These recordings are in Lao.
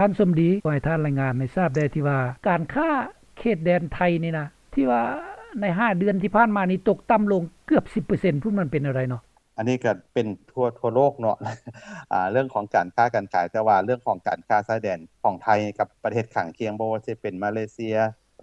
ທ່ານສົມດີ ຂໍໃຫ້ທ່ານລາຍງານໃຫ້ຊາບແດ່ ທີ່ວ່າການຄ້າເຂດແດນໄທນີ້ນະ ທີ່ວ່າໃນຫ້າເດືອນທີ່ຜ່ານມານີ້ຕົກຕ່ຳລົງເກືອບສິບເປີເຊັນພຸ້ນ ມັນເປັນແນວໃດເນາະ? ອັນນີ້ກໍເປັນທົ່ວ ທົ່ວໂລກເນາະ ອ່າ ເລື່ອງຂອງການຄ້າການຂາຍ ແຕ່ວ່າເລື່ອງຂອງການຄ້າຊາຍແດນຂອງໄທກັບປະເທດຂ້າງຄຽງ ບໍ່ວ່າຊິເປັນມາເລເຊຍ,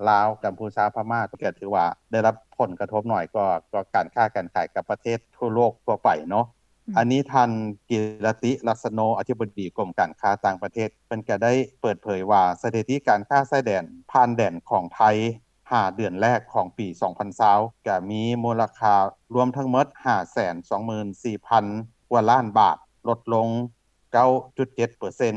ລາວ, ກັມພູຊາ, ພະມ້າ ກໍຖືວ່າໄດ້ຮັບຜົນກະທົບໜ້ອຍກວ່າ ກວ່າການຄ້າການຂາຍກັບປະເທດທົ່ວໂລກທົ່ວໄປເນາະ. ອືມ ອັນນີ້ທ່ານ ກິລະຕິ ລັດສະໂນ ອະທິບໍດີກົມການຄ້າຕ່າງປະເທດ ເພິ່ນກໍໄດ້ເປີດເຜີຍວ່າ ສະຖິຕິການຄ້າຊາຍແດນ ຜ່ານແດນຂອງໄທ ຫ້າເດືອນແລກຂອງປີສອງພັນຊາວ ກະມີມູນລະຄ່າລວມທັງໝົດ ຫ້າແສນສອງໝື່ນສີ່ພັນກວ່າລ້ານບາດ, ລົດລົງເກົ້າຈຸດເຈັດເປີເຊັນ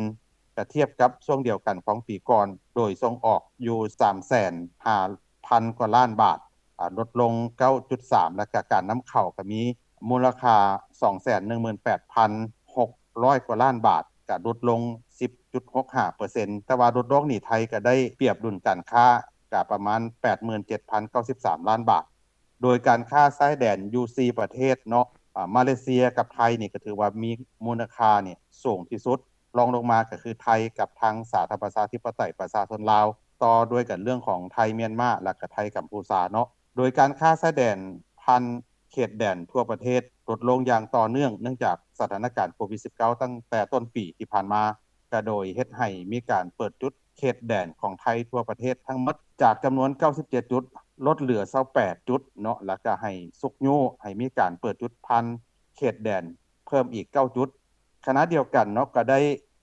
ກະທຽບກັບຊ່ວງດຽວກັນຂອງປີກ່ອນ, ໂດຍສົ່ງອອກຢູ່ສາມແສນຫ້າພັນກວ່າລ້ານບາດ, ອາ ລົດລົງເກົ້າຈຸດສາມ ແລະກະການນຳເຂົ້າກະມີມູນລະຄ່າສອງແສນໜຶ່ງໝື່ນແປດພັນຫົກຮ້ອຍກວ່າລ້ານບາດ, ກະຫຼຸດລົງສິບຈຸດຫົກຫ້າເປີເຊັນ. ແຕ່ວ່າຫຼຸດລົງນີ້ ໄທກະໄດ້ປຽບດຸນການຄ້າ ກະປະມານແປດໝື່ນເຈັດພັນເກົ້າສິບສາມລ້ານບາດ. ໂດຍການຄ້າຊາຍແດນຢູ່ສີ່ປະເທດເນາະ ອາ ມາເລເຊຍກັບໄທນີ້ ກະຖືວ່າມີມູນລະຄ່ານີ້ສູງທີ່ສຸດ, ລອງລົງມາກະຄືໄທກັບທາງສາທາລະນະລັດປະຊາທິປະໄຕປະຊາຊົນລາວ, ຕໍ່ດ້ວຍກັນເລື່ອງຂອງໄທມຽນມາ ແລະກະໄທກຳພູຊາເນາະ. ໂດຍການຄ້າຊາຍແດນຜ່ານເຂດແດນທົ່ວປະເທດ ລົດລົງຢ່າງຕໍ່ເນື່ອງ ເນື່ອງຈາກສະຖານະການໂຄວິດສິບເກົ້າ ຕັ້ງແຕ່ຕົ້ນປີທີ່ຜ່ານມາ ກະໂດຍເຮັດໃຫ້ມີການເປີດຈຸດເຂດແດນຂອງໄທທົ່ວປະເທດທັງໝົດ ຈາກຈຳນວນເກົ້າສິບເຈັດຈຸດ ລົດເຫຼືອຊາວແປດຈຸດເນາະ ແລ້ວກະໃຫ້ຊຸກຍູ້ໃຫ້ມີການເປີດຈຸດຜ່ານເຂດແດນເພີ່ມອີກເກົ້າຈຸດ. ຂະນະດຽວກັນເນາະ ກະໄດ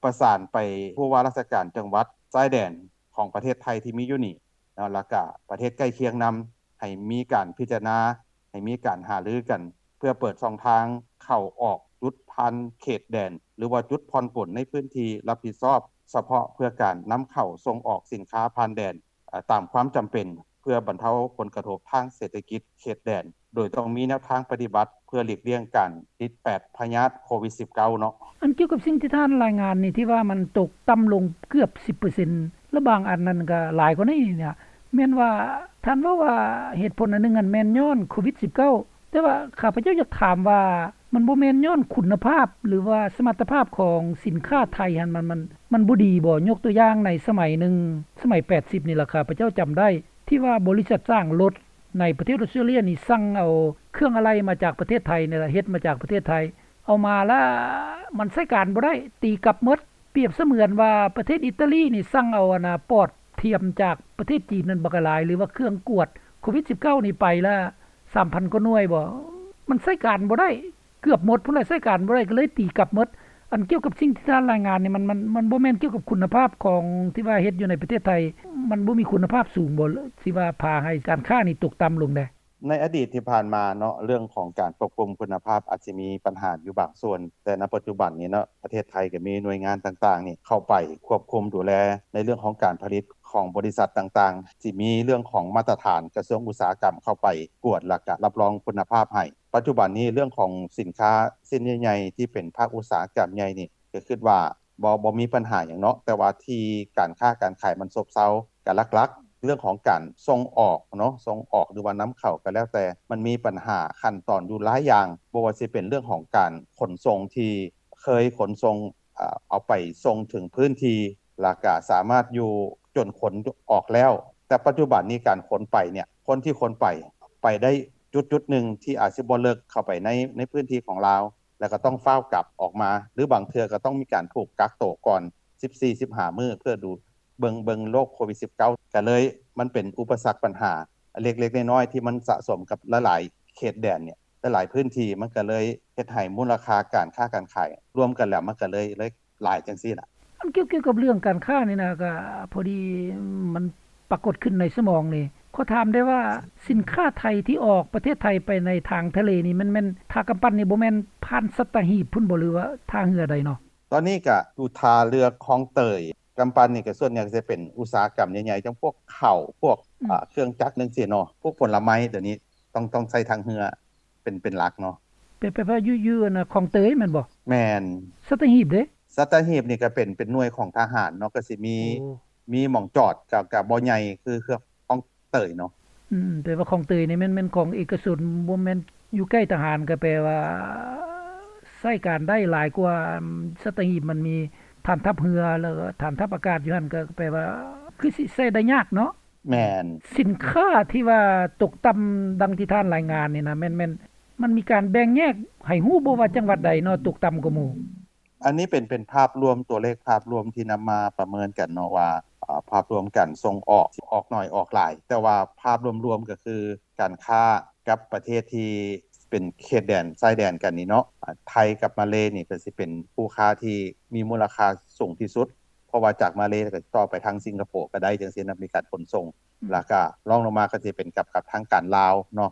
້ປະສານໄປຜູ້ວ່າລາຊະການຈັງຫວັດຊາຍແດນຂອງປະເທດໄທທີ່ມີຢູ່ນີ້ ເນາະ ແລ້ວກະປະເທດໃກ້ຄຽງນຳ ໃຫ້ມີການພິຈາລະນາ ໃຫ້ມີການຫາລືກັນ ເພື່ອເປີດຊ່ອງທາງເຂົ້າອອກຈຸດຜ່ານເຂດແດນ ຫຼືວ່າຈຸດຜ່ອນປົນໃນພື້ນທີ່ຮັບຜິດຊອບສະເພາະ ເພື່ອການນຳເຂົ້າສົ່ງອອກສິນຄ້າຜ່ານແດນ ເອີ ຕາມຄວາມຈຳເປັນ ເພື່ອບັນເທົາຜົນກະທົບທາງເສດຖະກິດເຂດແດນ ໂດຍຕ້ອງມີແນວທາງປະຕິບັດ ເພື່ອຫຼີກລ່ຽງການຕິດແປດພະຍາດໂຄວິດສິບເກົ້າເນາະ. ອັນກ່ຽວກັບສິ່ງທີ່ທ່ານລາຍງານນີ້ ທີ່ວ່າມັນຕົກຕ່ຳລົງເກືອບສິບເປີເຊັນ ແລະບາງອັນນັ້ນກໍຫຼາຍກວ່ານີ້ນະ ແມ່ນວ່າທ່ານເວົ້າວ່າເຫດຜົນອັນໜຶ່ງຫັ້ນແມ່ນຍ້ອນໂຄວິດສິບເກົ້າ ແຕ່ວ່າຂ້າພະເຈົ້າຢາກຖາມວ່າ ມັນບໍ່ແມ່ນຍ້ອນຄຸນນະພາບ ຫຼືວ່າສະມັດຕະພາບຂອງສິນຄ້າໄທຫັ້ນ ມັນ ມັນ ມັນບໍ່ດີບໍ? ຍົກຕົວຢ່າງໃນສະໄໝໜຶ່ງ ສະໄໝແປດສິບນີ້ລະ ຂ້າພະເຈົ້າຈຳໄດ້ ທີ່ວ່າບໍລິສັດສ້າງລົດ ໃນປະເທດອອສເຕຣເລຍນີ້ ສັ່ງເອົາເຄື່ອງອາໄຫຼ່ມາຈາກປະເທດໄທນີ້ລະ ເຮັດມາຈາກປະເທດໄທ ເອົາມາລະມັນໃຊ້ການບໍ່ໄດ້ ຕີກັບໝົດ. ປຽບສະເໝືອນວ່າປະເທດອິຕາລີນີ້ ສັ່ງເອົາອັນນາປອດທຽມຈາກປະເທດຈີນນັ້ນບັກຫຼາຍ ຫຼືວ່າເຄື່ອງກວດໂຄວິດສິບເກົ້ານີ້ ໄປລະສາມພັນກວ່າໜ່ວຍບໍ ມັນໃຊ້ການບໍ່ໄດ້ ເກືອບໝົດພຸ້ນລະ ໃຊ້ການບໍ່ໄດ້ ກໍເລີຍຕີກັບໝົດ. ອັນກ່ຽວກັບສິ່ງທີ່ທ່ານລາຍງານນີ້ ມັນ ມັນ ມັນບໍ່ແມ່ນກ່ຽວກັບຄຸນນະພາບຂອງທີ່ວ່າເຮັດຢູ່ໃນປະເທດໄທ ມັນບໍ່ມີຄຸນນະພາບສູງບໍ ທີ່ວ່າພາໃຫ້ການຄ້ານີ້ຕົກຕ່ຳລົງແດ່? ໃນອະດີດທີ່ຜ່ານມາເນາະ ເລື່ອງຂອງການຄວບຄຸມຄຸນນະພາບອາດຊິມີບັນຫາຢູ່ບາງສ່ວນ, ແຕ່ນະປັດຈຸບັນນີ້ເນາະ ປະເທດໄທກໍມີໜ່ວຍງານຕ່າງໆນີ້ເຂົ້າໄປຄວບຄຸມດູແລໃນເລື່ອງຂອງການຜະລິດຂອງບໍລິສັດຕ່າງໆ, ຊິມີເລື່ອງຂອງມາດຕະຖານກະຊວງອຸດສາຫະກຳເຂົ້າໄປກວດ ແລ້ວກະຮັບຮອງຄຸນນະພາບໃຫ້. ປັດຈຸບັນນີ້ເລື່ອງຂອງສິນຄ້າຊິ້ນໃຫຍ່ໆ ທີ່ເປັນພາກອຸດສາຫະກຳໃຫຍ່ນີ້ ກໍຄິດວ່າ ບໍ່ ບໍ່ມີບັນຫາຫຍັງເນາະ, ແຕ່ວ່າທີ່ການຄ້າການຂາຍມັນຊົບເຊົາ ກໍຫຼັກໆ ເລື່ອງຂອງການສົ່ງອອກເນາະ, ສົ່ງອອກ ຫຼືວ່ານຳເຂົ້າກໍແລ້ວແຕ່ ມັນມີບັນຫາຂັ້ນຕອນຢູ່ຫຼາຍຢ່າງ, ບໍ່ວ່າຊິເປັນເລື່ອງຂອງການຂົນສົ່ງທີ່ເຄີຍຂົນສົ່ງ ເອົາໄປສົ່ງເຖິງພື້ນທີ່ ແລ້ວກະສາມາດຢູ່ຈົນຂົນອອກແລ້ວ, ແຕ່ປັດຈຸບັນນີ້ການຂົນໄປເນຍ ຄົນທີ່ຂົນໄປ ໄປໄດ້ຈຸດໆໜຶ່ງທີ່ອາດຊິບໍ່ເລິກເຂົ້າໄປໃນ ໃນພື້ນທີ່ຂອງລາວ ແລ້ວກໍຕ້ອງຟ້າວກັບອອກມາ ຫຼືບາງເທື່ອກໍຕ້ອງມີການຖືກກັກໂຕກ່ອນສິບສີ່ ສິບຫ້າມື້ ເພື່ອດູເບິ່ງ ເບິ່ງໂລກໂຄວິດສິບເກົ້າ ກໍເລີຍມັນເປັນອຸປະສັກບັນຫາເລັກໆນ້ອຍໆ ທີ່ມັນສະສົມກັບຫຼາຍໆເຂດແດນເນຍ ຫຼາຍໆພື້ນທີ່ ມັນກໍເລີຍເຮັດໃຫ້ມູນລະຄ່າການຄ້າການຂາຍລວມກັນແລ້ວ ມັນກໍເລີຍ ເລີຍຫຼາຍຈັ່ງຊີ້ລະ. ອັນກ່ຽວ ກ່ຽວກັບເລື່ອງການຄ້ານີ້ນະ ກໍພໍດີມັນປາກົດຂຶ້ນໃນສະໝອງນີ້ ຂໍຖາມໄດ້ວ່າ ສິນຄ້າໄທທີ່ອອກປະເທດໄທໄປໃນທາງທະເລນີ້ ແມ່ນ ແມ່ນ ຖ້າກຳປັ່ນນີ້ບໍ່ແມ່ນຜ່ານສັດຕະຫີບພຸ້ນບໍ ຫຼືວ່າທ່າເຮືອໃດເນາະ? ຕອນນີ້ກະຢູ່ທ່າເຮືອຄອງເຕີຍ, ກຳປັ່ນນີ້ກະສ່ວນໃຫຍ່ກະຈະເປັນອຸດສາຫະກຳໃຫຍ່ໆ ຈັ່ງພວກເຂົ້າ ພວກ ອືມ ເຄື່ອງຈັກຈັ່ງຊີ້ເນາະ, ພວກຜົນລະໄມ້ດຽວນີ້ຕ້ອງ ຕ້ອງໃຊ້ທາງເຮືອເປັນ ເປັນຫຼັກເນາະ. ແປ ແປວ່າຢູ່ ຢູ່ອັນນະ ຄອງເຕີຍແມ່ນບໍ່? ແມ່ນ. ສັດຕະຫີບເດ? ສັດຕະຫີບນີ້ກະເປັນ ເປັນໜ່ວຍຂອງທະຫານເນາະ, ກະຊິມີ ໂອ້ ມີໝ່ອງຈອດ ກະ ກະບໍ່ໃຫຍ່ຄື ຄືຄອງເຕີຍເນາະ. ອືມ ແປວ່າຄອງເຕີຍນີ້ແມ່ນ ແມ່ນຂອງເອກະຊົນ ບໍ່ແມ່ນຢູ່ໃກ້ທະຫານ ກະແປວ່າໃຊ້ການໄດ້ຫຼາຍກວ່າ ອາ ສັດຕະຫີບ ມັນມີ ຖານທັບເຮືອ ແລ້ວກໍຖານທັບອາກາດຢູ່ຫັ້ນ ກໍແປວ່າຄືຊິໃຊ້ໄດ້ຍາກເນາະ. ແມ່ນ. ສິນຄ້າທີ່ວ່າຕົກຕ່ຳດັ່ງທີ່ທ່ານລາຍງານນີ້ນະ ແມ່ນ ແມ່ນ ມັນມີການແບ່ງແຍກໃຫ້ຮູ້ບໍ່ວ່າຈັງຫວັດໃດເນາະ ຕົກຕ່ຳກວ່າໝູ່? ອັນນີ້ເປັນ ເປັນພາບລວມ ຕົວເລກພາບລວມທີ່ນຳມາປະເມີນກັນເນາະວ່າ ອາ ພາບລວມການສົ່ງອອກ ອອກໜ້ອຍອອກຫຼາຍ ແຕ່ວ່າພາບລວມໆກໍຄືການຄ້າກັບປະເທດທີ່ເປັນເຂດແດນຊາຍແດນກັນນີ້ເນາະ ອາ ໄທກັບມາເລນີ້ກໍຊິເປັນຄູ່ຄ້າທີ່ມີມູນລະຄ່າສູງທີ່ສຸດ ເພາະວ່າຈາກມາເລກໍຕໍ່ໄປທາງສິງກະໂປກໍໄດ້ ຈັ່ງຊີ້ນະ ມີການຂົນສົ່ງ ອືມ ແລ້ວກໍລອງລົງມາກໍຊິເປັນກັບ ກັບທາງການລາວເນາະ